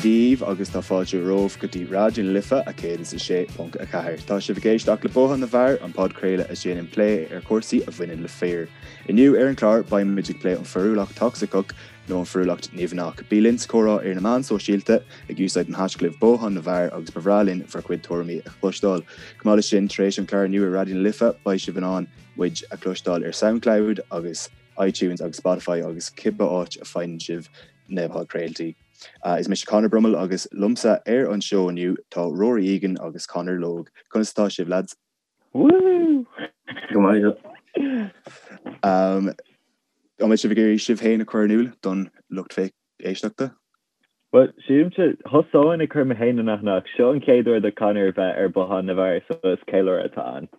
daoibh agus tá fáilte romhaibh go dtí Raidió na Life 106.4. Tá sibh ag éisteacht le Bothán na bhFear, an podchraoladh a dhéanann plé ar chúrsaí a bhaineann le fir. Inniu ar an chlár beidh muid ag plé an fearúlacht tocsaiceach nó an fearúlacht nimhneach. Bí linn sa chomhrá ar na meáin sóisialta ag úsáid an haischlib Bothán na bhFear agus ba bhreá linn bhur gcuid tuairimí a chloisteáil. Chomh maith leis sin, tar éis an chláir inniu ar Raidió na Life beidh sibh in ann muid a chloisteáil ar Soundcloud agus iTunes agus Spotify agus cibé áit a faigheann sibh na podchraoltaí. Is mise Conor Brummel agus liomsa ar an seó inniu tá Rory Egan agus Conor Logue. Conas atá sibh lads? Woohoo! Go maith. An mbeidh sibh ag iarraidh sibh féin a chur in iúl don lucht éisteachta? Bhuel, sílimse, thosóinn ag cur mé féin in aithne ach seo an chéad uair do Conor bheith ar Bothán na bhFear so is ceiliúradh atá ann.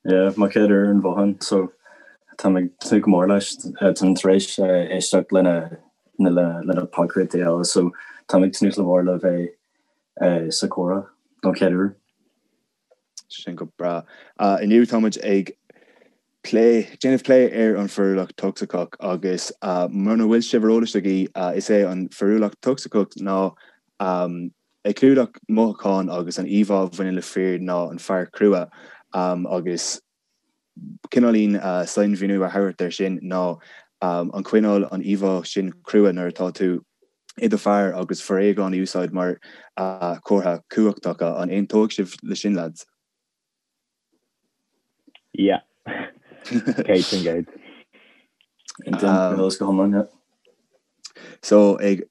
Yeah, mo chéad uair ar an Bhothán so táim ag tnúth go mór leis. Táim tar éis éisteacht lena lena podchraoltaí eile so táim ag tnúth go mór le bheith sa chomhrá don chéad uair. Sin go breá. Inniu tá muid ag plé, déanamh plé ar an fearúlacht tocsaiceach agus muna bhfuil sibh ar eolas agaibh, is é an fearúlacht tocsaiceach ná ag clúdach mothúcháin agus an íomhá a bhaineann le fir ná an fear crua agus cineáilín sainmhíniú a thabhairt air sin ná an coinneáil an íomhá sin crua nuair atá tú i do fear agus foréigean a úsáid mar chomhartha cumhachta. An aontóidh sibh le sin, lads? Yeah. 100%. Aontaím go hiomlán, yeah. So, ag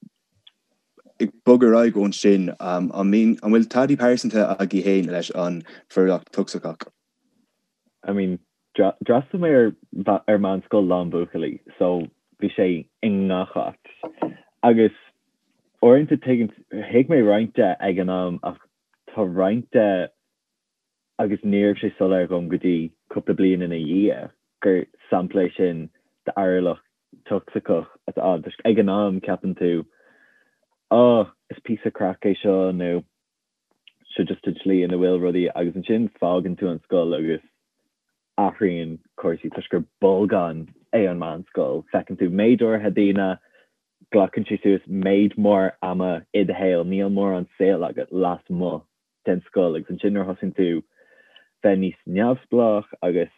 bogadh ar aghaidh ón sin, an mbíonn, an bhfuil taithí pearsanta agaibh féin leis an bhfearúlacht tocsaiceach? I mean, d'fhreastail mé ar ar meánscoil lán buachaillí so bhí sé i ngach áit. Agus uaireanta tuigeann, thuig mé roinnt de ag an am ach tá roinnt de agus ní raibh sé soiléir dhom go dtí cúpla bliain ina dhiaidh gur sampla é sin d'fhearúlacht tocsaiceach atá ann. Toisc ag an am ceapann tú, oh, is píosa craic é seo nó seo just an tslí ina bhfuil rudaí agus ansin fágann tú an scoil agus athraíonn cúrsaí toisc gur bolgán é an meánscoil. Feiceann tú méid áirithe daoine, glacann sé suas méid mór ama i do shaol, níl mórán saol agat lasmuigh den scoil agus ansin nuair a thosaíonn tú bheith níos neamhspleách agus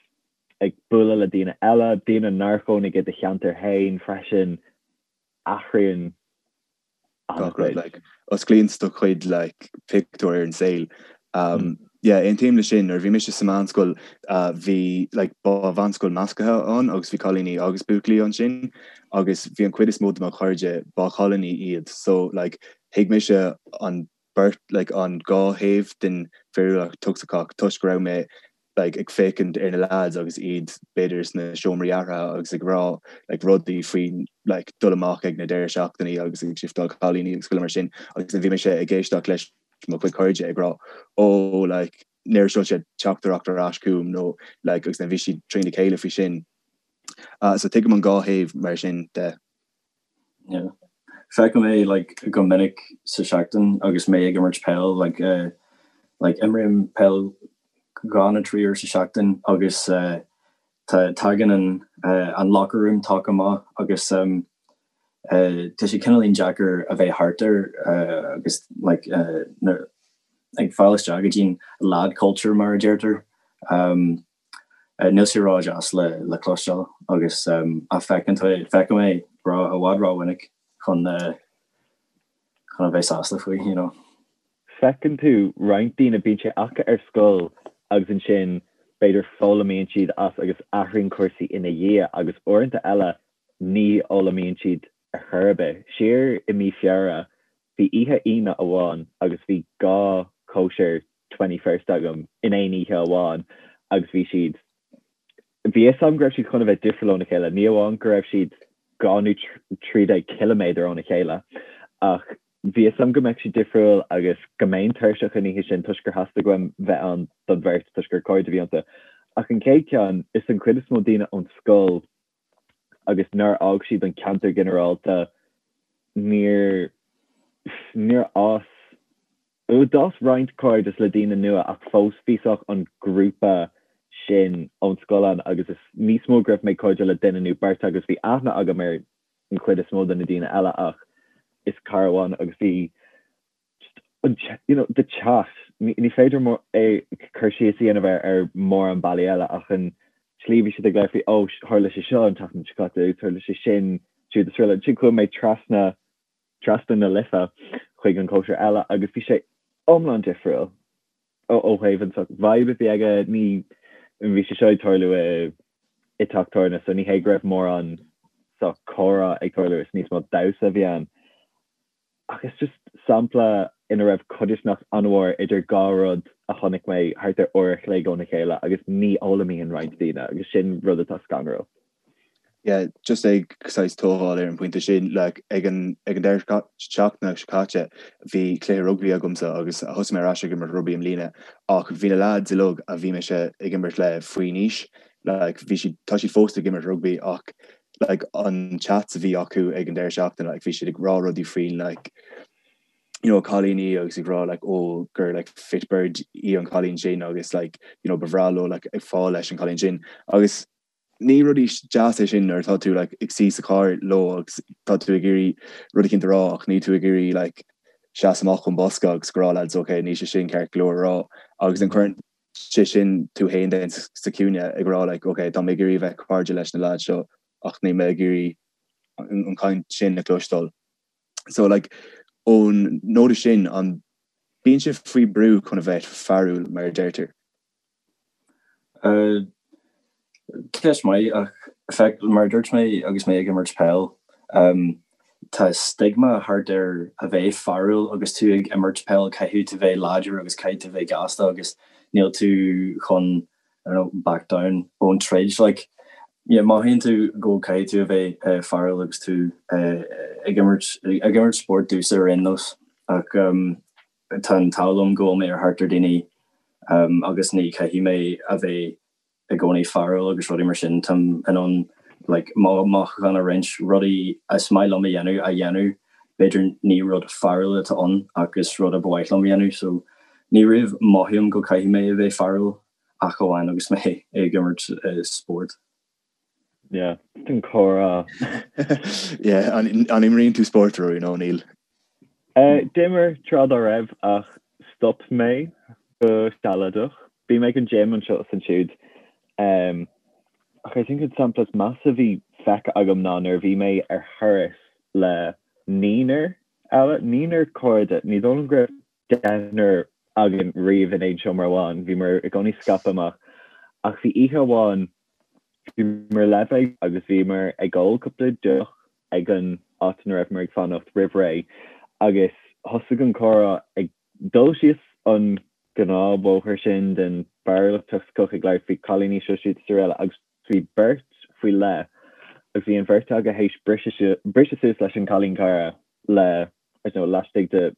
ag bualadh le daoine eile, daoine nár chónaigh i do cheantar féin freisin, athraíonn gach rud like osclaíonn do chuid like pictiúr ar an saol. Um, yeah, aontaím le sin nuair bhí mise sa meánscoil uh, bhí like ba mheánscoil measctha ann agus bhí cailíní agus buachaillí ansin agus bhí an chuid is mó de mo chairde ba chailíní iad so like thuig mise an beirt like an dhá thaobh den bhfearúlacht tocsaiceach toisc go raibh mé like ag féachaint ar na lads agus iad b'fhéidir sna seomraí athraithe agus ag rá like rudaí faoi like dul amach ag na deireadh seachtainí agus ag shiftáil cailíní agus chuile mar sin agus then bhí mise ag éisteacht leis mo chuid cairde ag rá oh like níor sheol siad teachtaireacht ar ais chugam nó like agus then bhí siad trína chéile faoi sin. Uh, so tuigim an dhá thaobh mar sin de. Yeah. Feicim é like go minic sa seachtain agus mé ag imirt peil like uh, like imrím peil dhá nó trí uair sa seachtain agus uh, tagann an uh, an locker room talk amach agus um, uh, tá sé cineáilín deacair a bheith thart air uh, agus like uh, ag fáil isteach go dtí'n lad culture mar a deirtear. Um, Níl sé ró-dheas le cloisteáil agus feicim é i bhfad ró-mhinic chun chun a bheith sásta faoi, you know. Feiceann tú roinnt daoine, bíonn sé acu ar scoil agus ansin b'fhéidir foghlaimíonn siad as agus athraíonn cúrsaí ina dhiaidh agus uaireanta eile ní fhoghlaimíonn siad ar chor ar bith. Siar i mí Feabhra bhí oíche Aoine amháin agus bhí dhá chóisir 21st agam in aon oíche amháin agus bhí siad, bhí fhios agam go raibh siad chun a bheith difriúil óna chéile, ní amháin go raibh siad 12 nó 13 ciliméadar óna chéile ach bhí fhios agam go mbeadh siad difriúil agus go mbeinn tuirseach an oíche sin toisc gur theastaigh uaim bheith ann don bheirt toisc gur cairde a bhí iontu. Ach an chéad cheann, is an chuid is mó daoine ón scoil agus nár fhág siad an ceantar ginearálta, níor, níor fhás, d'fhás roinnt cairdeas le daoine nua ach fós bhí sách an grúpa sin ón scoil ann agus is níos mó go raibh mé cairdiúil le duine nó beirt agus bhí aithne agam ar an chuid is mó de na daoine eile ach is cara amháin agus bhí. An you know the chat ní féidir é cur síos a dhéanamh air ar mórán bealaí eile ach an tslí bhí siad ag labhairt faoi oh tharla sé seo an tseachtain seo caite agus tharla sé sin siúd is araile. Ansin chuaigh mé trasna trasna na Life chuig an cóisir eile agus bhí sé iomlán difriúil ó ó thaobh an sort vibe a bhí aige ní bhí sé seo ag tarlú i i teach tábhairne so ní hé go raibh mórán sort comhrá ag tarlú is níos mó damhsa a bhí ann. Ach is just sampla ina raibh codarsnacht an-mhór idir dhá rud a chonaic mé thart ar uair a chloig óna chéile agus ní fhoghlaimíonn roinnt daoine agus sin rud atá scanrúil. Yeah, just ag saghas tógáil ar an bpointe sin, like, ag an ag an deireadh seachtaine seo caite bhí cluiche rugbaí agamsa agus thosaigh mé ar ais ag imirt rugbaí i mbliana ach bhí na lads uilig a bhí mise ag imirt le faoin aois, like, bhí siad, tá siad fós ag imirt rugbaí ach like an chats a bhí acu ag an deireadh seachtaine like bhí siad ag rá rudaí faoin like you know cailíní agus ag rá like oh gur like fit bird í an cailín sin agus like you know ba bhreá leo like ag fáil leis an cailín sin agus ní rudaí deas é sin nuair atá tú like ag suí sa charr leo agus tá tú ag iarraidh rud eicínt a rá ach níl tú ag iarraidh like seasamh amach ón bosca agus go rá lads ok níl sé sin ceart go leor a rá agus an cuireann sé sin tú féin then sa chúinne ag rá like ok tá mé ag iarraidh a bheith cairde leis na lads seo ach níl mé ag iarraidh an chaint sin a chloisteáil. So like ón nóta sin an bíonn sibh faoi brú chun a bheith fearúil mar a deirtear? Uh, Ceist maith ach feic, mar a dúirt mé agus mé ag imirt peil, um, tá stigma thart ar a bheith fearúil agus tú ag imirt peil, caithfidh tú bheith láidir agus caithfidh tú bheith gasta agus níl tú chun, I don't know, back down ón troid. Like, yeah, mothaíonn tú go caithfidh tú a bheith fearúil agus tú ag imirt, ag imirt spórt domhsa ar aon nós ach um, tá an t-ádh liom go bhfuil mé ar thart ar daoine um, agus ní caithfidh mé a bheith i gcónaí fearúil agus rudaí mar sin, táim in ann like mo mhothúcháin a roinnt, rudaí is maith liom a dhéanamh a dhéanamh, b'fhéidir ní rud fearúil atá ann ach is rud a ba mhaith liom a dhéanamh so ní riamh mothaím go caithfidh mé a bheith fearúil ach amháin agus mé ag imirt spórt. Yeah, an comhrá. Yeah, an imríonn tú spórt Rory nó níl? D'imir tráth dá raibh ach stop mé go sealadach. Bím ag an gym anseo is ansiúd. Ach I think an sampla is measa a bhí feicthe agam ná nuair a bhí mé ar thuras le naonúr eile, naonúr cairde, ní dóigh liom go raibh deichniúr againn riamh in aon seomra amháin, bhíomar i gcónaí scaipthe amach. Ach bhí oíche amháin, bhíomar le bheith agus bhíomar ag ól cúpla deoch ag an áit ina raibheamar ag fanacht roimh ré agus thosaigh an comhrá ag dul síos an gnáthbhóthar sin den bhfearúlacht tocsaiceach ag labhairt faoi cailíní seo siúd is araile agus bhí beirt faoi leith agus bhí an bheirt acu théis briseadh suas leis an cailín cara le I don't know, laistigh de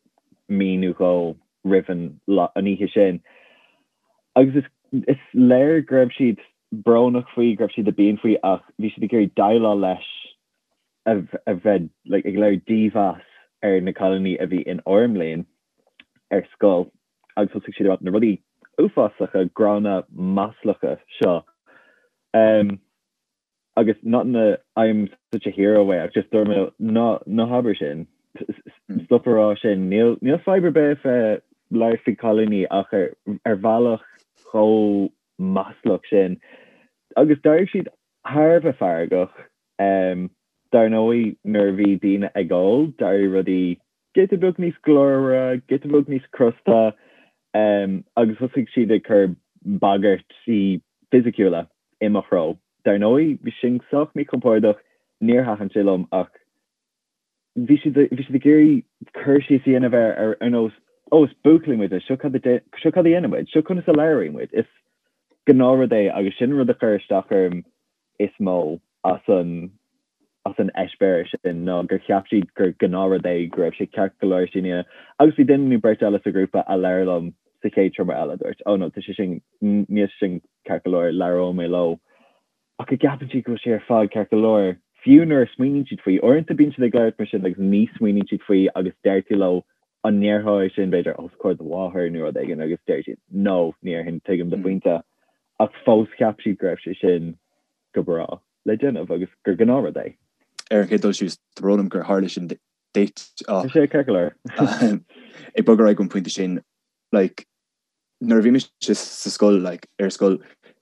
mí nó dhó roimh an an oíche sin. Agus is is léir go raibh siad brónach faoi, go raibh siad i bpian faoi ach bhí siad ag iarraidh déileáil leis a a bheith like ag léiriú dímheas ar na cailíní a bhí in ár mbliain ar scoil agus thosaigh siad ag rá na rudaí uafásacha, gránna, maslacha seo. Um, agus not in a I'm such a hero way ach just dúirt mé ná ná habair sin stop a rá sin níl níl fadhb ar bith bheith labhairt faoi cailíní ach ar ar bhealach chomh maslach sin agus d'éirigh siad thar a bheith feargach um, dar ndóigh nuair a bhí daoine ag ól d'éirigh rudaí giota beag níos glórmhaire, giota beag níos crosta agus thosaigh siad ag cur bagairtí fisiciúla i mo threo. Dar ndóigh, bhí sin sách míchompordach, níor thaitin sé liom ach bhí siad bhí siad ag iarraidh cur síos a dhéanamh air ar ar nós 'Ó, is buachaillí muid, seo cad a seo cad a dhéanann muid, seo conas a labhraíonn muid'. Is gnáthrud é agus sin an rud a chuir isteach orm is mó as an as an eispéireas sin ná gur cheap siad gur gnáthrud é, go raibh sé ceart go leor sin a dhéanamh. Agus bhí duine nó beirt eile sa ghrúpa a labhair liom sa chéad seomra eile, dúirt, oh no, tá sé sin, níl sé sin ceart go leor, labhróidh mé leo. Ach go gceapann siad go bhfuil sé ar fad ceart go leor, fiú nuair a smaoiníonn siad faoi. Uaireanta bíonn siad ag labhairt mar sin agus ní smaoiníonn siad faoi agus deir tú leo, an ndéarfá é sin, b'fhéidir, os comhair do mháthar nó rud éigin agus deir siad, no, ní déarfainn, tuigim do phointe. Ach fós cheap siad go raibh sé sin go breá le déanamh agus gur gnáthrud é. Ar an chéad dul síos, tá brón orm gur tharla sin duit ach. Tá sé ceart go leor. Ag bogadh ar aghaidh ón pointe sin, like, nuair a bhí mise sa scoil, like, ar scoil,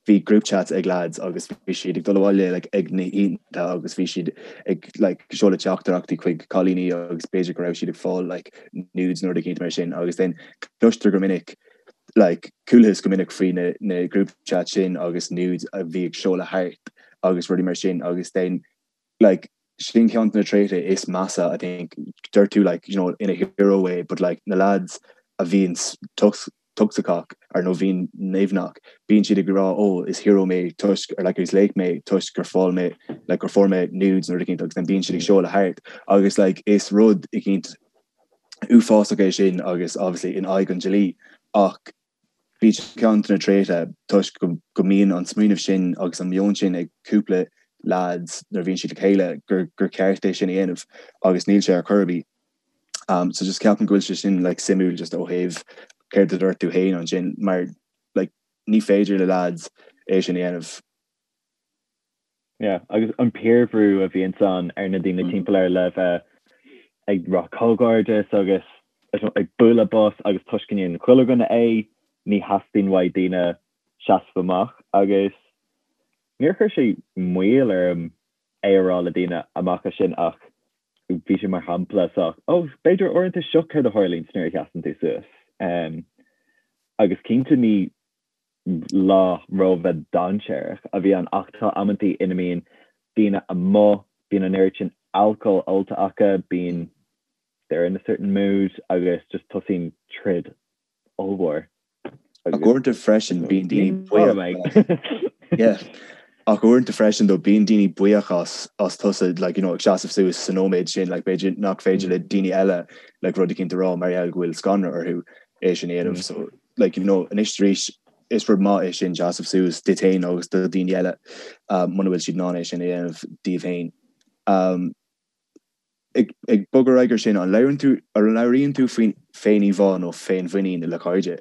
bhí group chats ag lads agus bhí siad ag dul abhaile like, ag na hoícheanta agus bhí siad ag like, seoladh teachtaireachtaí chuig cailíní agus b'fhéidir go raibh siad ag fáil like, nudes nó rud eicínt mar sin agus then cloistear go minic like, chualathas go minic faoi na, na group chat sin agus nudes a bhí ag seoladh thart agus rudaí mar sin agus then like sin ceann de na tréithe is measa I think dúirt tú like you know in a hero way but like na lads a bhíonn tocsaiceach ar nó bhíonn nimhneach bíonn siad ag rá oh is hero mé toisc or like is laoch mé toisc gur fáil mé like gur fuair mé nudes nó rud eicínt agus then bíonn siad ag seoladh thart agus like is rud eicínt uafásach é sin agus obviously in aghaidh an dlí ach Bíonn sé ceann de na tréithe toisc go mbíonn an smaoineamh sin agus an meon sin ag cúpla leaids nuair a bhíonn siad le chéile gur gur ceart é sin a dhéanamh agus níl sé ar chor ar bith. So just ceapaim go bhfuil sé sin like suimiúil just ó thaobh céard a dúirt tú féin ansin mar like ní féidir le leaids é sin a dhéanamh. Yeah, agus an piarbhrú a bhíonns ann ar na daoine timpeall air le bheith ag rá comhghairdeas agus ag bualadh bos agus toisc go ndéanann chuile dhuine é, ní theastaíonn uaidh daoine seasamh amach agus níor chuir sé moill orm é a rá le daoine amach as sin ach bhí sé mar shampla sách, oh, b'fhéidir uaireanta seo céard a tharlaíonns nuair a sheasann tú suas. Agus cinnte ní lá róbheith dainséarach a bhí ann ach tá amantaí ina mbíonn daoine amuigh, bíonn an oiread sin alcóil ólta acu, bíonn they're in a certain mood agus just tosaíonn troid ollmhór. Ach uaireanta freisin bíonn daoine buíoch. Yeah. Ach uaireanta freisin though bíonn daoine buíoch as as tusa like you know ag seasamh suas sa nóiméad sin like b'fhéidir nach féidir le daoine eile like rud eicínt a rá mar gheall go bhfuil scanradh orthu é sin a dhéanamh so like you know anois arís is rud maith é sin seasamh suas duit féin agus do dhaoine eile muna bhfuil siad in ann é sin a dhéanamh díobh féin. Um, ag, ag bogadh ar aghaidh ar sin, an labhrann tú, an labhraíonn tú faoin féin-íomhá nó féinmhuinín le cairde?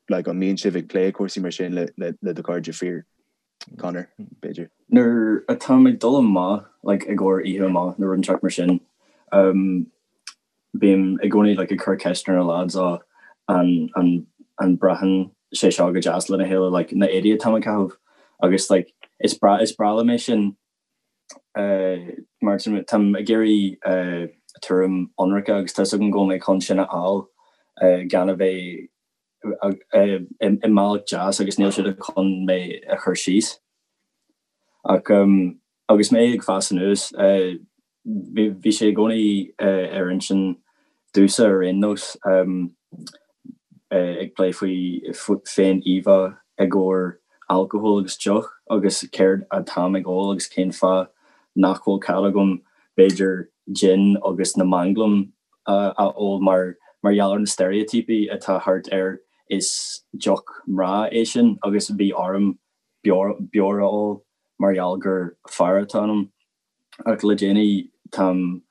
Like, an mbíonn sibh ag plé cúrsaí mar sin le, le, le do chairde fir? Conor, b'fhéidir. Nuair atáim ag dul amach, like, i gcomhair oíche amach nó rud inteacht mar sin, um, Bím i gcónaí like ag cur ceist ar na lads á an an an braitheann sé seo go deas lena chéile like na éadaí atáim ag caitheamh agus like is breá is breá liom é sin eh mar táim ag iarraidh eh tuairim ionraice agus tá 'fhios agam go bhfuil mé chun sin a fháil eh gan a bheith eh i mbealach deas agus níl siad chun mé a chur síos. Ach um agus mé ag fás anuas eh Bhí sé i gcónaí ar intinn domhsa ar aon nós ag plé faoi féin-íomhá i gcomhair alcóil agus deoch agus céard atáim ag ól agus cén fáth nach bhfuil cead agam b'fhéidir gin agus na manglaim a ól mar mar gheall ar na steiréitíopaí atá thart ar is deoch mná é sin agus bhí orm beoir a ól mar gheall gur fear atá ionam. Ach le déanaí táim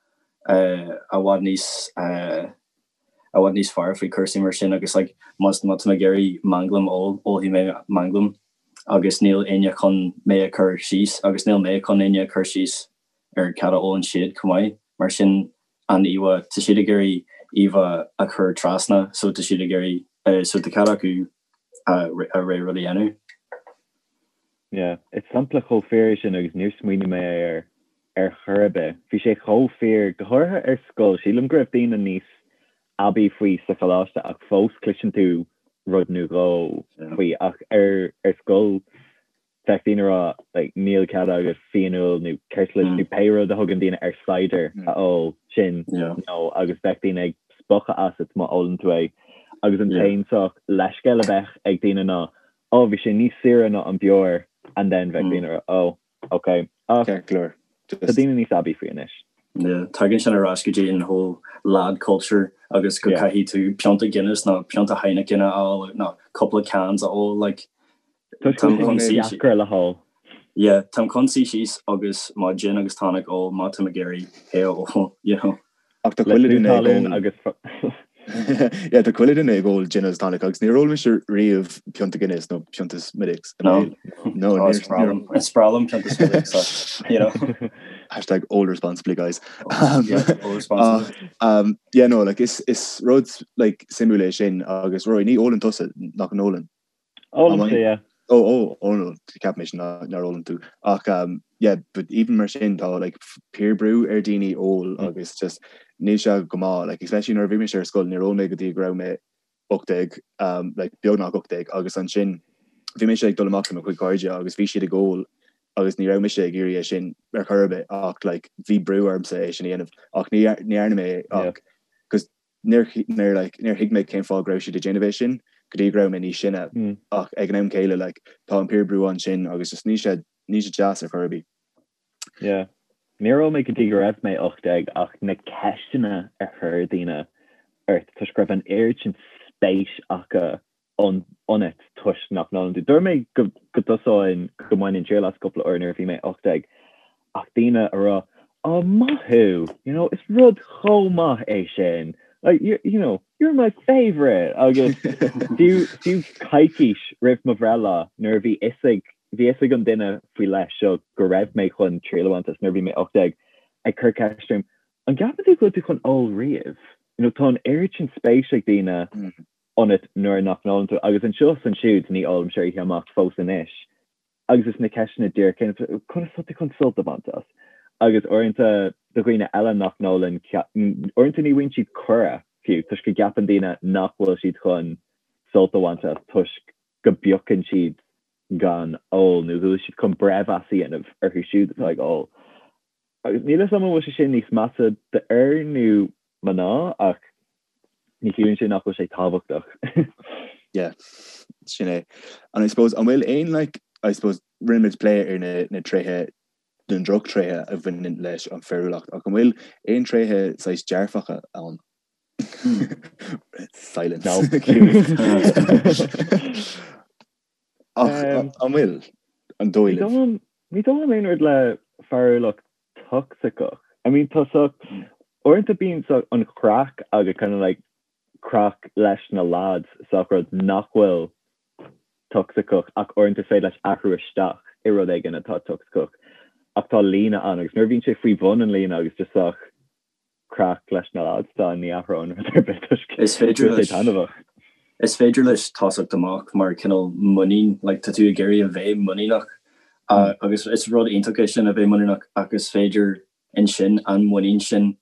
i bhfad níos i bhfad níos fearr faoi cúrsaí mar sin agus like má má tá mé ag iarraidh manglam a ól, ólfaidh mé manglam agus níl éinne chun mé a chur síos agus níl mé chun éinne a chur síos ar cad a ólann siad chomh maith. Mar sin an íomhá, tá siad ag iarraidh íomhá a chur trasna so tá siad ag iarraidh so tá cead acu a a rogha rud a dhéanamh. Yeah, is sampla chomh fíor é sin agus níor smaoinigh mé air ar chor ar bith. Bhí sé chomh fíor, go háirithe ar scoil. Sílim go raibh daoine níos aibí faoi sa choláiste ach fós cloiseann tú rud nó dhó faoi ach ar ar scoil bheadh daoine ag rá like níl cead agat fíonfheoil nó ceirtlis nó pé rud a thugann daoine ar cider a ól sin nó agus bheadh daoine ag spochadh asat má ólann tú é agus an t-aon sórt leithscéal a bheadh ag daoine ná oh bhí sé níos saoire ná an beoir and then bheadh daoine ag rá oh ok ach Ceart go leor. tá daoine níos aibí faoi anois. Yeah, tagann sin ar ais go dtí an whole lad culture agus go caithfidh tú pionta Guinness nó pionta Heineken a fháil nó cúpla cans a ól like Tá sé deacair le hól. Yeah, táim chun suí síos agus mo gin agus tonic a ól má táim ag iarraidh é a ól, you know. Ach tá chuile duine ag ól agus Yeah, tá chuile duine ag ól gin agus tonic agus níor ól mise riamh pionta Guinness nó pionta Smithwick's. No, no, is breá liom pionta Smithwick's, you know. Hashtag ól responsibly guys. Yeah, ól responsibly. Um, yeah, no, like, is, is rud like, suimiúil é sin agus Rory, ní ólann tusa nach n-ólann. Ólaimse, yeah. Oh, oh, oh no, cheap mise nár ólann tú. Ach um, yeah, but even mar sin tá like, peer brú ar daoine ól mm. agus just níl sé go maith, like, especially nuair a bhí mise ar scoil níor ól mé go dtí go raibh mé 18, um, like, beagnach 18 agus ansin bhí mise ag dul amach le mo chuid cairde agus bhí siad ag ól agus ní raibh mise ag iarraidh é sin ar chor ar bith ach like, bhí brú ormsa é sin a dhéanamh ach ní ní dhearna mé ach cos níor níor like, níor thuig mé cén fáth go raibh siad ag déanamh é sin go dtí go raibh mé níos sine mm. ach ag an am céile like, tá an peer brú ansin agus just níl sé níl sé deas ar chor ar bith. Yeah. Níor ól mé go dtí go raibh mé 18 ach na ceisteanna a chuir daoine ort toisc go raibh an oiread sin spéis acu ionat toisc nach n-ólann tú. Dúirt mé go dtosóinn go mbainfinn triail as cúpla uair nuair a bhí mé 18 ach daoine a rá oh maith thú, you know, is rud chomh maith é sin, like, you, you know, you're my favourite agus fiú fiú coicís roimh mo bhreithlá nuair a bhí fhios ag Bhí fhios ag an duine faoi leith seo go raibh mé chun triail a bhaint as nuair a bhí mé 18, ag cur ceist orm, an gceapann tú go bhfuil tú chun ól riamh? You know, tá an oiread sin spéis ag daoine ionat nuair nach n-ólann tú, agus anseo is ansiúd ní ólaimse ar oíche amach fós anois, agus is na ceisteanna díreach céanna, conas tá tú chun sult a bhaint as? Agus uaireanta do dhaoine eile nach n-ólann, uaireanta ní bhfaigheann siad cuireadh fiú, toisc go gceapann daoine nach bhfuil siad chun sult a bhaint as toisc go bpiocann siad gan ól nó go bhfuil siad chun breithmheas a dhéanamh orthu siúd atá ag ól. Agus níl a fhios agam an bhfuil sé sin níos measa d'fhir nó mná ach ní chiallaíonn sé nach bhfuil sé tábhachtach. Yeah, sin é. And I suppose an bhfuil aon like, I suppose rinne muid plé ar na, na tréithe na drochtréithe a bhaineann leis an fearúlacht ach an bhfuil aon tréithe saghas dearfacha ann? Silence. No. Ach an bhfuil an dóigh libh? Ní dóigh liom aon rud le fearúlacht tocsaiceach. I mean tá so uaireanta bíonn so an chraic agus kind of like craic leis na lads sách rud nach bhfuil tocsaiceach ach uaireanta is féidir leis athrú isteach i rud éigin atá tocsaiceach ach tá líne ann agus nuair a bhíonn sé faoi bhun an líne agus just sách craic leis na lads tá ní athróinn rud ar bith toisc Is féidir sé leis taitneamhach. Is féidir leis tosacht amach mar cineál muinín, like tá tú ag iarraidh a bheith muiníneach agus is rud iontach é sin a bheith muiníneach ach is féidir ansin an muinín sin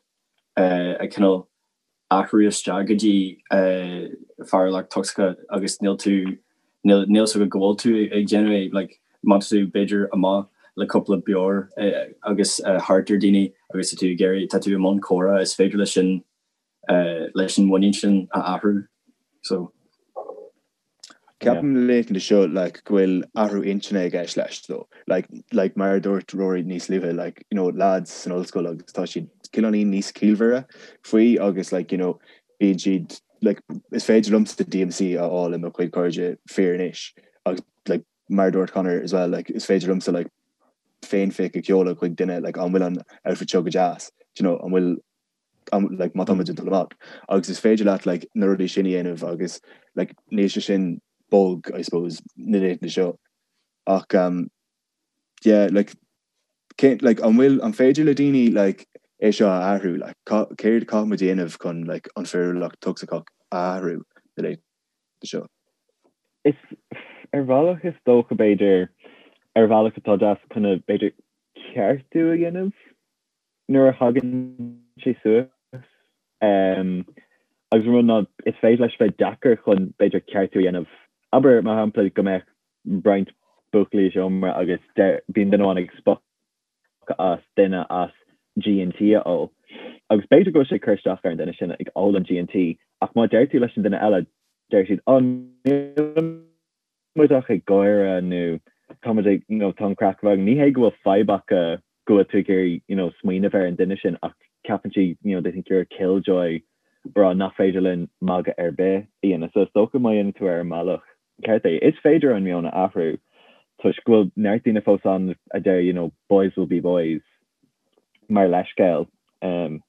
a cineál athrú isteach go dtí fearúlacht tocsaiceach agus níl tú níl níl 's agat go bhfuil tú ag déanamh é like má tá tú b'fhéidir amach le cúpla beoir agus thart ar daoine agus tá tú ag iarraidh tá tú i mbun comhrá is féidir leis sin leis an muinín sin a athrú so. Ceapaim na laethanta seo like go bhfuil athrú intinne i gceist leis though. Like like mar a dúirt Rory níos luaithe like you know lads san ollscoil agus tá siad cineáilín níos ciallmhaire faoi agus like you know bíonn siad like is féidir liomsa DMC a fháil i mo chuid cairde fir anois agus like mar a dúirt Conor as well like is féidir liomsa like féinphic a sheoladh chuig duine like an bhfuil an outfit seo go deas do you know an bhfuil an like má tá muid ag dul amach agus is féidir leat like na rudaí sin a dhéanamh agus like níl sé sin bog I suppose na laethanta seo ach um yeah like cé like an bhfuil an féidir le daoine like é seo a athrú like céard caithfidh muid a dhéanamh chun like an fearúlacht tocsaiceach a athrú na laethanta seo? Is ar bhealach is dócha b'fhéidir ar bhealach atá deas chun b'fhéidir ceartú a dhéanamh nuair a thagann sé suas. Agus an rud ná is féidir leis bheith deacair chun b'fhéidir ceartú a dhéanamh. Abair mar shampla go mbeadh roinnt buachaillí i seomra agus bíonn duine amháin ag spochadh as duine as G&T a ól. Agus b'fhéidir go bhfuil sé ag cur isteach ar an duine sin ag ól an G&T ach má deir tú leis an duine eile deir siad 'Ó níl muid ach ag gáire nó tá muid ag, you know, tá an craic againn. Ní hé go bhfuil fadhb acu go bhfuil tú ag iarraidh, you know, smaoineamh ar an duine sin ach ceapann siad, you know, they think you're a killjoy rá nach féidir linn magadh ar bith a dhéanamh. So is dócha má dhéanann tú ar an mbealach ceart é, is féidir an meon a athrú toisc go bhfuil neart daoine fós ann a deir, you know, boys will be boys mar leithscéal. Um,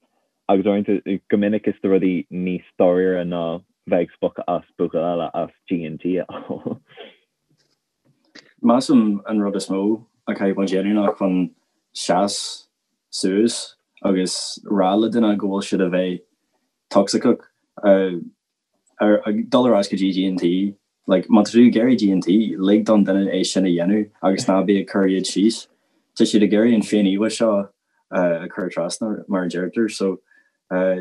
Agus uaireanta, go minic is do rudaí níos dáiríre ná bheith ag spochadh as buachaill eile as G&T a ól. Measaim an rud is mó a chaithfidh muid a dhéanamh ná chun seas. suas agus rá le duine go bhfuil siad a bheith tocsaiceach. Ar dul ar ais go dtí G&T, like, má tá tú ag iarraidh G&T, lig don duine é sin a dhéanamh agus ná bí ag cur iad síos. Tá siad ag iarraidh an féin-íomhá seo a chur trasna, mar a deirtear, so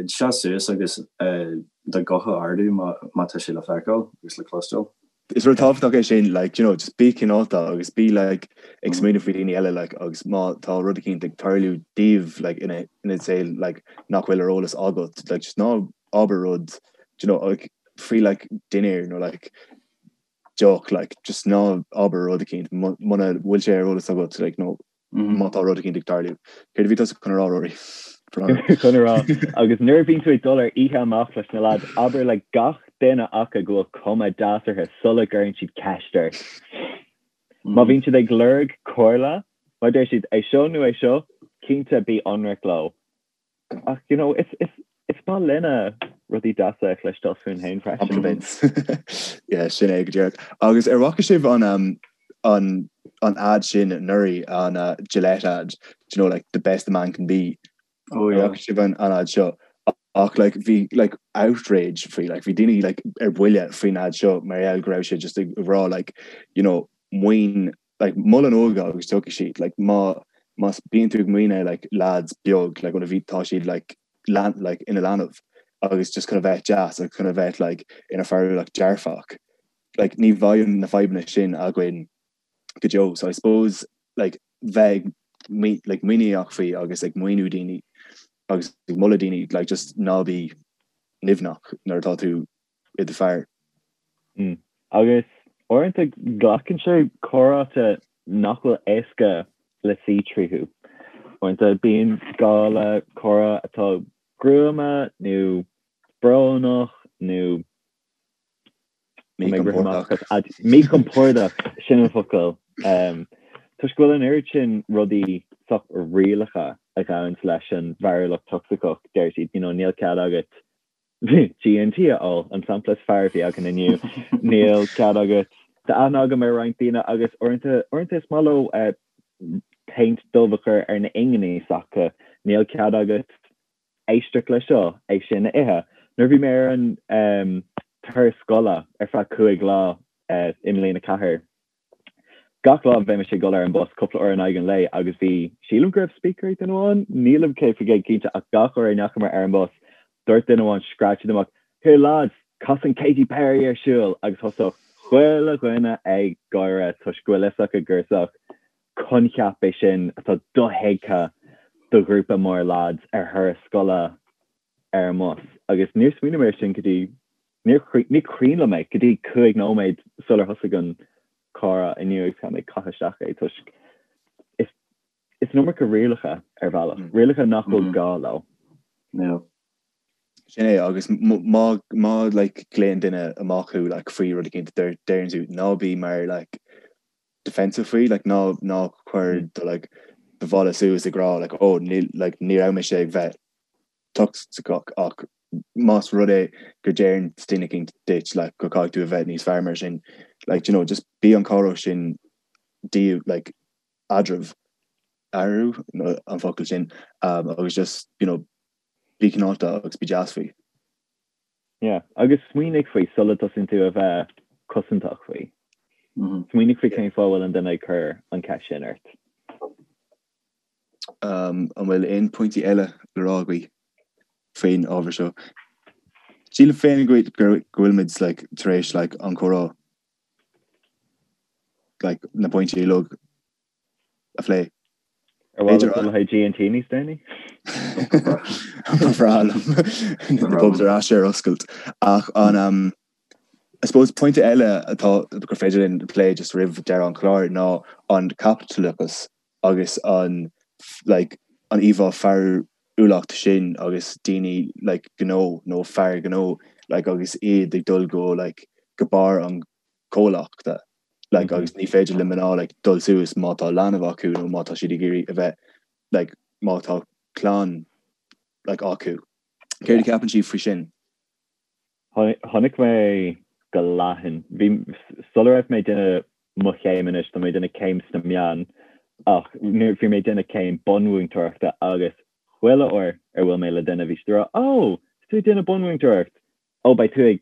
seas suas agus do ghuth a ardú má tá sé le feiceáil agus le cloisteáil. Is rud tábhachtach é sin, like, you know, just bí cineálta agus bí like ag smaoineamh faoi daoine eile like agus má tá rud eicínt ag tarlú daoibh like ina ina saol like nach bhfuil ar eolas agat like just ná abair rud do you know like faoi like dinnéar nó like deoch like just ná abair rud eicínt muna bhfuil sé ar eolas agat like nó má tá rud eicínt ag tarlú. Céard a bhí tusa chun a rá, Rory? Chun a rá, agus nuair a bhíonn tú ag dul ar oíche amach leis na lads, abair le gach duine acu go bhfuil cuma deas orthu sula gcuireann siad ceist ort. Má bhíonn siad ag lorg comhairle, má deir siad é seo nó é seo, cinnte bí ionraic leo. Ach, you know, is, is, is maith linne rudaí deasa a chloisteáil fúinn féin freisin. Compliments. Yeah, sin é go díreach. Agus ar bhfaca sibh an, um, an, an ad sin anuraidh, an uh, Gillette ad, do you know, like, the best a man can be. Oh, yeah. Ar bhfaca sibh an, an ad seo? Ach, like, bhí, like, outrage faoi, like, bhí daoine, like, ar buile faoin ad seo mar gheall go raibh sé just ag rá, like, you know, maoin like mol an óige agus tiocfaidh siad like má má bíonn tú ag maoineadh like lads beag like ó bhí tá siad like lean like ina leanbh agus just chun a bheith deas agus chun a bheith like ina fearúlacht dearfach like ní bheidh na fadhbanna sin againn go deo so I suppose like bheith ag like muiníneach faoi agus ag maoiniú daoine agus ag moladh daoine like just ná bí nimhneach nuair atá tú i do fear. Agus uaireanta glacann sé comhráite nach bhfuil éasca le suí tríothu. Uaireanta bíonn gá le comhrá atá gruama nó brónach nó Míchompordach. Míchompordach, sin an focal. Toisc go bhfuil an oiread sin rudaí sách rialacha a ghabhanns leis an bhfearúlacht tocsaiceach, deir siad, you know, níl cead agat G&T a ól, an sampla is fearr a bhí againn inniu. Níl cead agat. Tá aithne agam ar roinnt daoine agus uaireanta, uaireanta is maith leo péint dubh a chur ar na hinginí s'acu. Níl cead agat éisteacht le seo, é sin a ithe. Nuair a bhí mé ar an turas scoile ar feadh 5 lá i mbliain 4, Gach lá bheimis ag dul ar an bus cúpla uair in aghaidh an lae agus bhí, sílim go raibh speaker ag duine amháin, nílim 100% cinnte ach gach uair a ndeachamar ar an bus dúirt duine amháin, scread siad amach, Here lads, cas an Katy Perry ar siúl! agus thosódh chuile dhuine ag gáire toisc go bhfuil fhios acu gur sách coincheap é sin atá dothuigthe do ghrúpa mór lads ar thuras scoile ar an mbus agus níor smaoinigh mé air sin go dtí, níor, ní cuimhin liom é go dtí 5 nóiméad sular thosaigh an comhrá inniu agus caithfidh mé caitheamh isteach é toisc is, is an iomarca rialacha ar bhealach, rialacha nach bhfuil gá leo. Yeah. Sin é agus má, má like glaonn duine amach thú like faoi rud eicínt deir, deireann tú ná bí mar like defensive faoi like ná, ná cuir do like do bhalla suas ag rá like oh níl like ní raibh mise ag bheith tocsaiceach ach más rud é go deireann duine eicínt duit like go caithfidh tú a bheith níos fearr mar sin like you know just bí an comhrá sin díobh like eadraibh eatarthu nó an focal sin um, agus just you know bí cineálta agus bí deas faoi. Yeah, agus smaoinigh faoi sula dtosaíonn tú a bheith cosantach faoi. Smaoinigh faoi cén fáth a bhfuil an duine ag cur an ceist sin ort. An bhfuil aon pointí eile le rá agaibh faoin ábhar seo? Sílim féin go bhfuilimid like tar éis like an comhrá like na pointí uilig a phlé. Ar mhaith leat dul le haghaidh G&T níos déanaí? Ba bhreá liom na pubs ar ais ar oscailt. Ach an um, I suppose pointe eile atá gur féidir linn plé just roimh deireadh an chláir ná an caipitleachas agus an like an íomhá fearúlacht sin agus daoine like gnó nó fear gnó like agus iad ag dul go like go barr an chomhlachta like agus ní féidir le mná like dul suas má tá leanbh acu nó má tá siad ag iarraidh a bheith like má tá clann like acu. Céard a cheapann sibh faoi sin? Chonaic mé go leathan. Bhí, sula raibh mé ag déanamh mo chéim anois, tá mé ag déanamh céim sna meáin. Ach nuair bhí mé ag déanamh céim bunmhúinteoireachta agus chuile uair ar bhuail mé le duine bhí siad ag rá 'Ó, tá tú ag déanamh bunmhúinteoireacht! Ó, beidh tú ag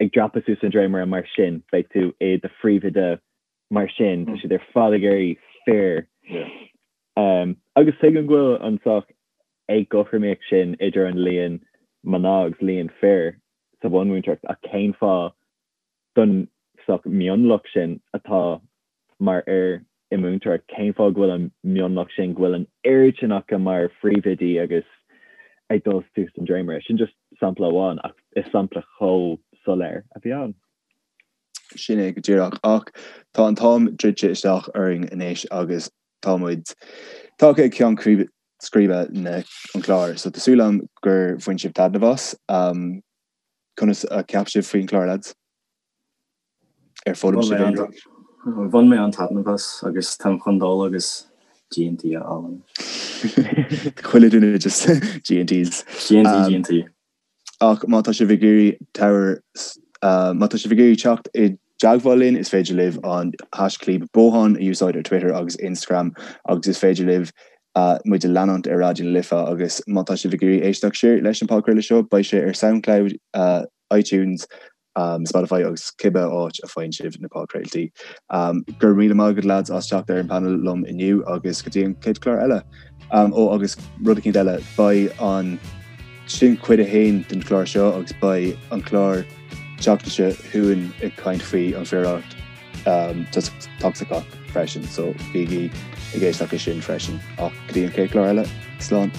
ag dreapadh suas an dréimire mar sin, beidh tú i do phríomhoide mar sin, tá siad ar fad ag iarraidh fir. Agus tuigim go bhfuil an saghas éagothromaíocht sin idir an líon mná agus líon fir sa bhunmhúinteoireacht ach cén fáth don saghas mionlach sin atá mar fhir i múinteoireacht, cén fáth go bhfuil an mionlach sin, go bhfuil an oiread sin acu mar phríomhoidí agus ag dul suas an dréimire? Sin just sampla amháin ach is sampla chomh soiléir a bhí ann. Sin é go díreach. Ach tá an t-am druidte isteach orainn anois agus tá muid tagtha ag ceann scríbe na an chláir. So tá súil agam gur bhain sibh taitneamh as. Conas a cheap sibh faoin chlár, lads? Ar foghlaim sibh aon rud? Bhain mé an-taitneamh as agus táim chun dul agus G&T a fháil anois. Chuile duine just G&Ts. G&T, G&T. Ach má tá sibh ag iarraidh tabhair má tá sibh ag iarraidh teacht i dteagmháil linn, is féidir libh an haischlib Bothán a úsáid ar Twitter agus Instagram agus is féidir libh muid a leanúint ar Raidió na Life agus má tá sibh ag iarraidh éisteacht siar leis an podchraoladh seo, beidh sé ar Soundcloud, iTunes, Spotify agus cibé áit a faigheann sibh na podchraoltaí. Go raibh míle maith agat lads as teacht ar an panel liom inniu agus go dtí an chéad chlár eile. Ó agus rud eicínt eile, beidh an sin cuid a haon den chlár seo agus beidh an clár tseachtain seo chugainn ag caint faoi an phiaraireacht tocsaiceach freisin, so bígí ag éisteacht leis sin freisin. Ach go dtí an chéad chlár eile, slán!